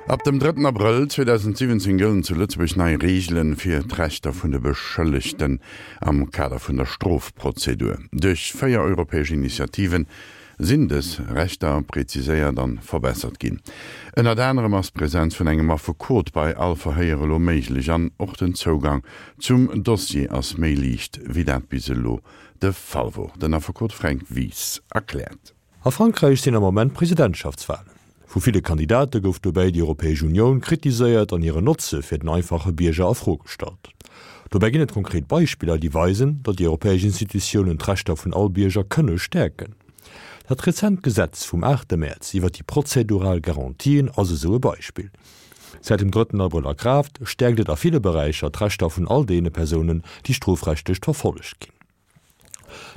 Ab dem drëtten Abrëll 2017 gëllen zu Lëtzebuerg nei Reegelen fir d'Rechter vun de Beschëllegten am Kader vun der Strofprozedur. Duerch 4 europäesch Initiativen sinn dës Rechter präziséiert an verbessert ginn. Ënnert anerem ass d'Präsenz vun engem Affekot bei all Verhéier elo méiglech an och den Zougang zum Dossier ass méi liicht wéi dat bis elo de Fall wor. Den Affekot Fränk Wies erkläert. A Frankräich sinn am Moment Presidentschaftswalen. Vu ville Kandidate gouf dobäi déi Europäesch Unioun kritiséiert an hiren Notze fir den einfache Bierger a Fro gestallt. Dobäi ginn et konkret Beispiller, déi weisen, datt déi europäesch Institutiounen d'Rechter vun all Bierger kënne stäerken. Dat rezent Gesetz vum aachte Mäerz iwwer déi prozedural Garantien ass esou e Beispill. Säit dem drëtten Abrëll a Kraaft, stäerkt et a ville Beräicher d'Rechter vun all deene Persounen, déi strofrechtlech verfollegt ginn.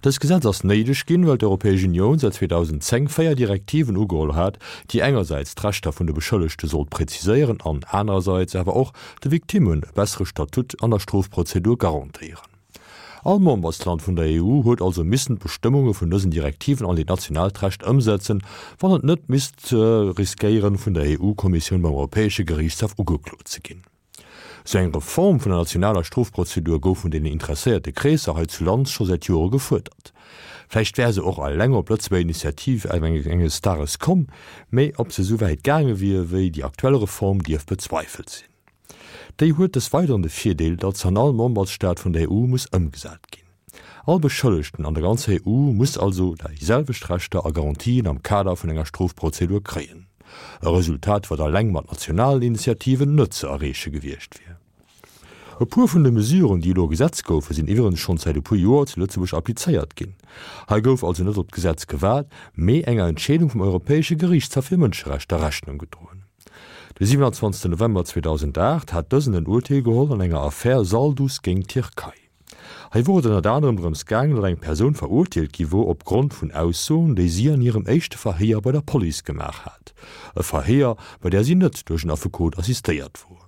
Dëst Gesetz ass néideg ginn, well d'Europäesch Unioun säit 2010 véier Direktiven ugeholl hat, déi engersäits d'Rechter vun de Beschëllegte sollt präziséieren an anerersäits awer och de Victimmen e bessere Statut an der Strofprozedur garantéieren. All Membersland vun der EU huet also missen d'Bestëmmunge vun dësen Direktiven an hiert nationaalt Recht ëmsetzen, wann et net misst riskéieren, vun der EU-Kommissioun beim Europäesche Geriichtshaff ugeklot ze ginn. Sou eng Reform vun der nationaler Strofprozedur gouf vun deenen interesséierte Kreesser hei zu Land scho säit Jore gefuerdert. Vläicht wär se och eleng op Lëtzebuerger Initiativ enges Dages komm, mee ob se esou wäit gaange wier wéi déi aktuell Reform, dierf bezweifelt sinn. Déi huet des Weideren de Virdeel, datt se an all Membersstaat vun der EU muss ëmgesat ginn. All Beschëllegten an der ganzer EU muss also déi selwecht Rechter a Garantien am Kader vun enger Strofprozedur kréien. E Resultat, wat eleng mat nationalen Initiativen net ze erreeche gewiescht wier. E puer vun de Mesuren, déi elo Gesetz goufen, sinn iwwerens schonn säit e puer Joer zu Lëtzebuerg applizéiert ginn. Hei gouf also net op d'Gesetz gewaart, mee enger Entscheedung vum Europäesche Geriichtshaff fir Mënscherechter Rechnung gedroen. De 27 November 2008 hat dësen en Urteel geholl an enger Affär Salduz géint d'Tierkei. Hei wor et ënnert anerem drëms gaangen, datt eng Persoun verurteelt gi wor opgrond vun Aussoen, déi si an hirem éischte Verhéier bei der Police gemaach hat. E Verhéier, bei där si net duerch en Affekot assistéiert wor.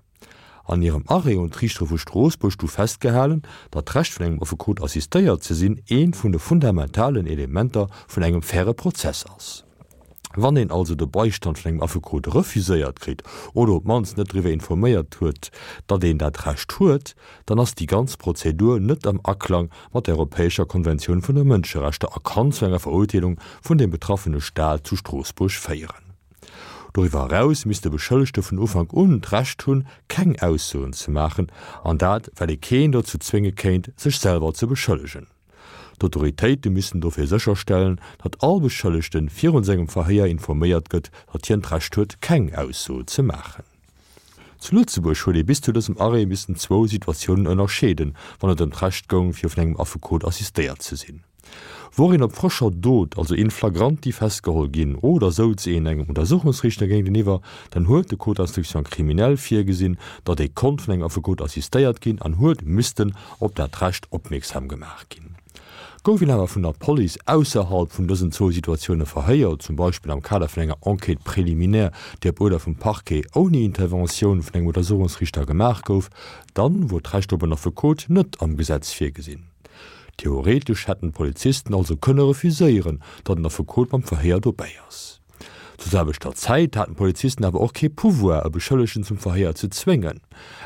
An hirem Arrêt hunn d'Riichtere vu Stroossbuerg du festgehalen, datt d'Recht vun engem Affekot assistéiert ze sinn eent vun de fundamentalen Elementer vun engem faire Prozess ass. Wann een also de Beistand vun engem Affekot refuséiert kritt oder op d'mannst net driwwer informéiert huet, datt een dat Recht huet, dann ass déi ganz Prozedur net am Aklang mat der Europäescher Konventioun vun de Mënscherechter a kann zu enger Verurteelung vun dem betraffene Staat zu Stroossbuerg féieren. Doriwwer eraus misst de Beschëllegte vun Ufank un d'Recht hunn, keng Aussoen ze maachen, an dat well ee keen dozou zwénge kéint, sech selwer ze beschëllegen. D'Autoritéite missten dofir sécherstellen, datt all Beschëllegte virun sengem Verhéier informéiert gëtt, datt hien d'Recht huet, keng Ausso ze maachen. Zu Lëtzebuerg huet ee bis zu dësem Arrêt missen zwou Situatiounen ënnerscheeden, wann et ëm d'Recht goung, fir vun engem Affekot assistéiert ze sinn. Wor een op frëscher Dot, also in flagranti, festgeholl ginn oder souz een engem Untersuchungsriichter géinteniwwer, dann huet de Code d'instruction criminelle virgesinn, datt ee konnt vun engem Affekot assistéiert ginn an huet missten op dat Recht opmierksam gemaach ginn. Gouf een awer vun der Police ausserhalb vun dësen zwou Situatioune verhéiert, zum Beispill am Kader vun enger Enquête préliminaire, déi op Uerder vum Parquet ouni Interventioun vun engem Untersuchungsriichter gemaach gouf, dann wor d'Recht op en Affekot net am Gesetz virgesinn. Theoretesch hätten d'Polizisten also kënne refuséieren, datt en Affekot beim Verhéier dobäi ass. Zur selwechter Zäit haten d'Polizisten awer och kee Pouvoir, e Beschëllegten zum Verhéier ze zwéngen.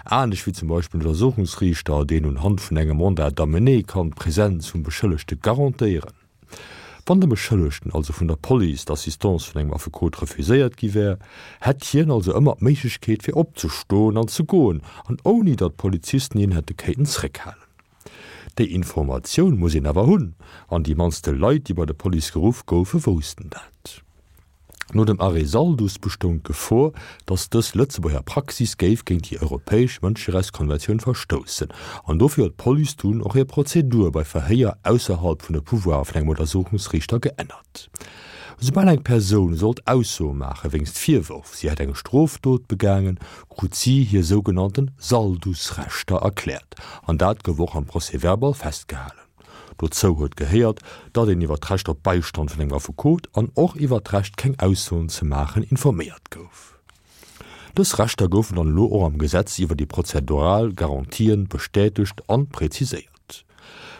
Anescht wéi zum Beispill en Untersuchungsriichter, deen un Hand vun engem Mandat d'amener kann d'Presenz vum Beschëllegte garantéieren. Wann dem Beschëllegten also vun der Police d'Assistance vun engem Affekot refuséiert gi wär, hätt hien also ëmmer d'Méiglechkeet fir opzestoen an ze goen, an ouni datt d'Polizisten hien hätte kéinten zréckhalen. Déi Informatioun muss een awer hunn, an déi mannste Leit, déi bei der Police geruff goufen, woussten dat. No dem Arrêt Salduz bestoung d'Gefor, datt dës Lëtzebuerger Praxis géif géint déi europäesch Mënscherechtskonventioun verstoussen, an dofir huet d'Police dunn och hir Prozedur bei Verhéier ausserhalb vun de Pouvoire vun engem Untersuchungsriichter geännert. Esoubal eng Persoun sollt Aussoe maache wéinst Virwërf, si hätt eng Strofdot begaangen, krut si hir sougenannten Saldusrechter erkläert, an dat gouf och am Procès-verbal festgehalen. Dozou huet gehéiert, datt een iwwer d'Recht op Beistand vun engem Affekot an och iwwer d'Recht keng Aussoen ze maachen informéiert gouf. Dës Rechter goufen dann elo och am Gesetz iwwer déi prozedural Garantien bestätegt an präziséiert.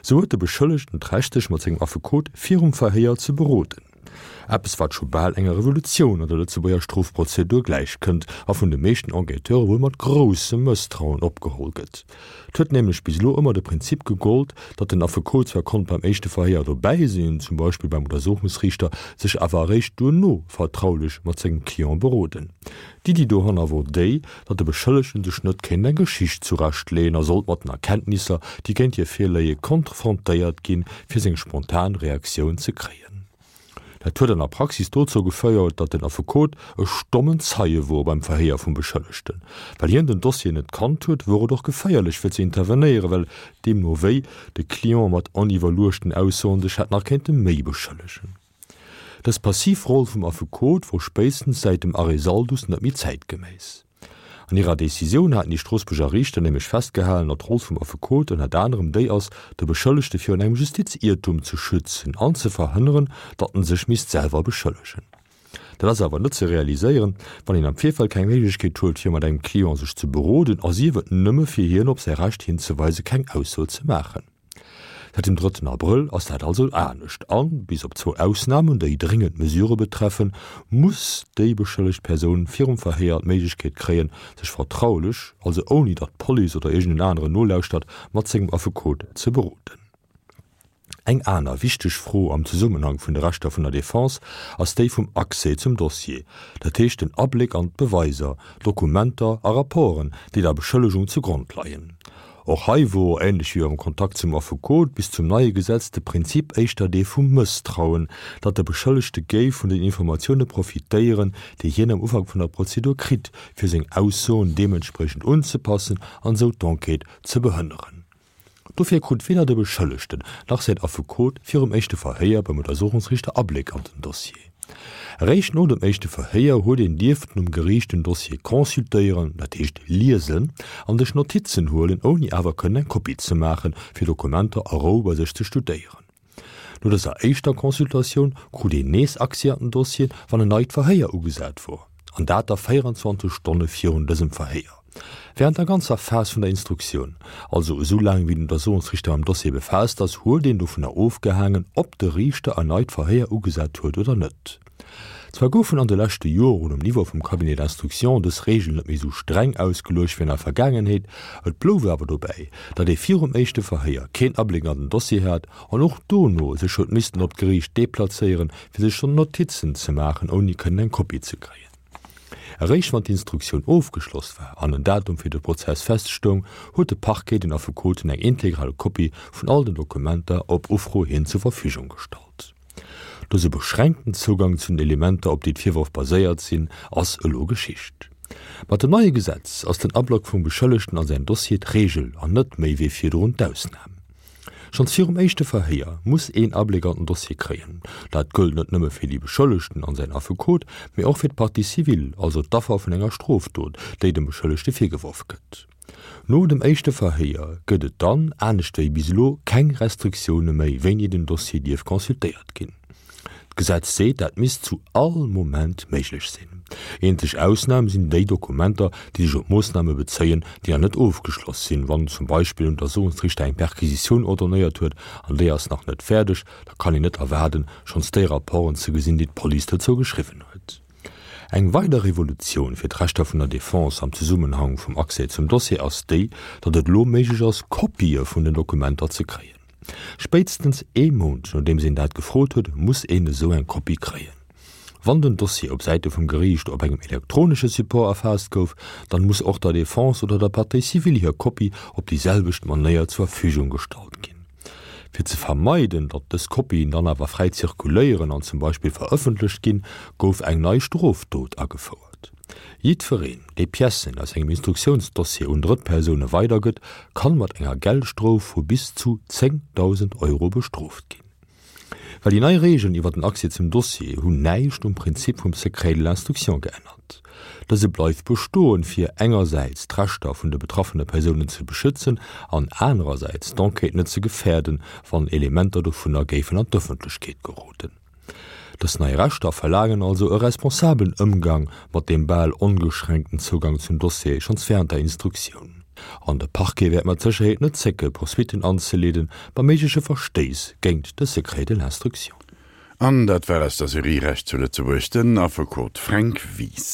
Sou huet de Beschëllegten d'Recht sech mat sengem Affekot virum Verhéier ze beroden. Eppes wat scho bal enger Revolutioun an der Lëtzebuerger Strofprozedur gläichkënnt a vun de meeschten Enquêteure wuel mat groussem Mësstrauen opgeholl gëtt. Et huet nämlech bis elo ëmmer de Prinzip gegollt, datt den Affekot zwar konnt beim éischte Verhéier dobäi sinn, zum Beispill beim Untersuchungsriichter, sech awer eréischt duerno vertraulech mat sengem Client beroden. D'Iddi dohanner wor déi, datt de Beschëllegten sech net kéint eng Geschicht zurechtleeën a sollt mat den Erkenntnisser, déi géint hie virléie, konfrontéiert ginn, fir seng spontan Reaktioun ze kréien. Dat huet an der Praxis dozou geféiert, datt den Affekot e stommen Zeie wor beim Verhéier vum Beschëllegten. Well hien den Dossier net kannt huet, wor et och geféierlech fir ze intervenéieren, well deemno wéi de Client mat oniwwerluechten Aussoen sech hätt nach kéinte méi beschëllegen. Dës passiv Roll vum Affekot wor spéitstens säit dem Arrêt Salduz net méi zäitgeméiss. An hirer Decisioun haten déi Stroossbuerger Riichter nämlech festgehalen, datt d'Roll vum Affekot ënnert anerem déi ass, de Beschëllegte virun engem Justiziertum ze schützen an ze verhënneren, datt en sech misst selwer beschëllegen. Dat ass awer net ze realiséieren, wann een am Virfeld keng Méiglechkeet huet, fir mat engem Client sech ze beroden a sief et nëmme fir hien op säi Recht hinzeweisen, keng Ausso ze maachen. Säit dem drëtten Abrëll ass dat also anescht an, bis op zwou Ausnamen, déi dréngend Mesurë betreffen, muss déi beschëllegt Persoun virum Verhéier d'Méiglechkeet kréien, sech vertraulech, also ouni datt d'Police oder iergend en aneren nolauschtert, mat sengem Affekot ze beroden. Eng aner wichteg Fro am Zesummenhang vun de Rechter vun der Defense ass déi vum Accès zum Dossier, dat heescht den Abléck an d'Beweiser, Dokumenter a Rapporten, déi der Beschëllegung zugrond leien. Och hei wor, ähnlech wéi beim Kontakt zum Affekot, bis zum neie Gesetz de Prinzip éischter dee vum Mësstrauen, datt de Beschëllegte géif vun den Informatioune profitéieren, déi hien am Ufank vun der Prozedur kritt, fir seng Aussoen deementspriechend unzepassen an esou d'Enquête ze behënneren. Dofir krut weder de Beschëllegten nach säin Affekot virum éischte Verhéier beim Untersuchungsriichter Abléck an den Dossier. Eréischt no dem éischte Verhéier huet een dierften um Geriicht den Dossier consultéieren, dat heescht liesen, an sech Notizen huelen, ouni awer kënnen eng Kopie ze maachen, fir Dokumenter a Rou bei sech ze studéieren. No dëser éischter Consultatioun krut een nees Accès an den Dossier, wann en neit Verhéier ugesat wor, an dat da 24 Stonne virun dësem Verhéier. Während der ganzer Phas vun der Instruktioun, also esou laang wéi den Untersuchungsriichter mam Dossier befaasst ass, huet een dovunner ofgehaangen, ob de Riichter en neit Verhéier ugesat huet oder net. Zwar goufen an de leschte Joren um Niveau vum Cabinet d'instruction dës Regeln net méi esou streng ausgeluecht wéi an der Vergaangenheet, et blouf awer dobäi, datt ee virum éischte Verhéier keen Abléck an den Dossier hat an och dono sech huet missten op d'Geriicht deplazéieren, fir sech Notizen ze maachen, ouni kënnen eng Kopie ze kréien. Eréischt wann d'Instruktioun ofgeschloss war an en Datum fir de Prozess feststoung, huet de Parquet den Affekoten eng integral Kopie vun all den Dokumenter op Ufro hin zur Verfügung gestallt. Dëse beschränkten Zougang zu den Elementer, op déi d'Virwërf baséiert sinn, ass elo Geschicht. Mat dem neie Gesetz ass den Ablock vum Beschëllegten a säin Dossier d'Reegel an net méi wéi virdrun d'Ausnam. Schonns virum éischte Verhéier muss een Abléck an den Dossier kréien. Dat gëllt net nëmme fir déi Beschëllegten an säin Affekot, mee och fir d'Partie civile, also d'Affer vun enger Strofdot, déi dem Beschëllegte virgeworf gëtt. No dem éischte Verhéier gëtt et dann, anescht wéi bis elo, keng Restriktioune méi, wéini den Dossier dierf consultéiert ginn. D'Gesetz seet, dat misst zu all Moment méiglech sinn. Eenzeg Ausnam sinn déi Dokumenter, déi sech op Moossname bezéien, déi nach net ofgeschloss sinn. Wann zum Beispill en Untersuchungsriichter eng Perquisitioun ordonnéiert huet an déi ass nach net fäerdeg, da kann een net erwaarden, schonns déi Rapporten ze gesinn, déi d'Police dozou geschriwwen huet. Eng weider Revolutioun fir d'Rechter vun der Defense am Zesummenhang vum Accès zum Dossier ass déi, datt et elo méiglech ass, Kopië vun den Dokumenter ze kréien. Spéitstens ee Mount nodeems een dat gefrot huet, muss een esou eng Kopie kréien. Wann den Dossier op Säite vum Geriicht op engem elektronesche Support erfaasst gouf, dann muss och der Defense oder der Partie civile hir Kopie op déi selwecht Manéier zur Verfügung gestallt ginn. Fir ze vermeiden, datt dës Kopien dann awer fräi zirkuléieren an zum Beispill verëffentlecht ginn, gouf eng nei Strofdot agefouert. Jiddwereen, dee Piècen aus engem Instruktiounsdossier un Drëttpersoune weidergëtt, kann mat enger Geldstrof vu bis zu 10.000 Euro bestrooft ginn. Well déi nei Regeln iwwer den Accès zum Dossier hunn näischt um Prinzip vum Secret de l'instruction geännert. Dëse bleift bestoen, fir engersäits d'Rechter vun de betraffene Persounen ze beschützen an anerersäits d'Enquête net ze gefäerden, wann Elementer dovunner géifen an d'Ëffentlechkeet geroden. Dës nei Rechter verlaangen also e responsabelen Ëmgang mat deem bal ongeschränkten Zougang zum Dossier schonns wärend der Instruktioun. An de Parquet wäert mat Sécherheet net zécke Poursuitten anzeleeden, bei méigleche Verstéiss géingt de Secret de l'instruction. An dat war aus der Serie Recht zu Lëtzebuerg den Affekot Fränk Wies.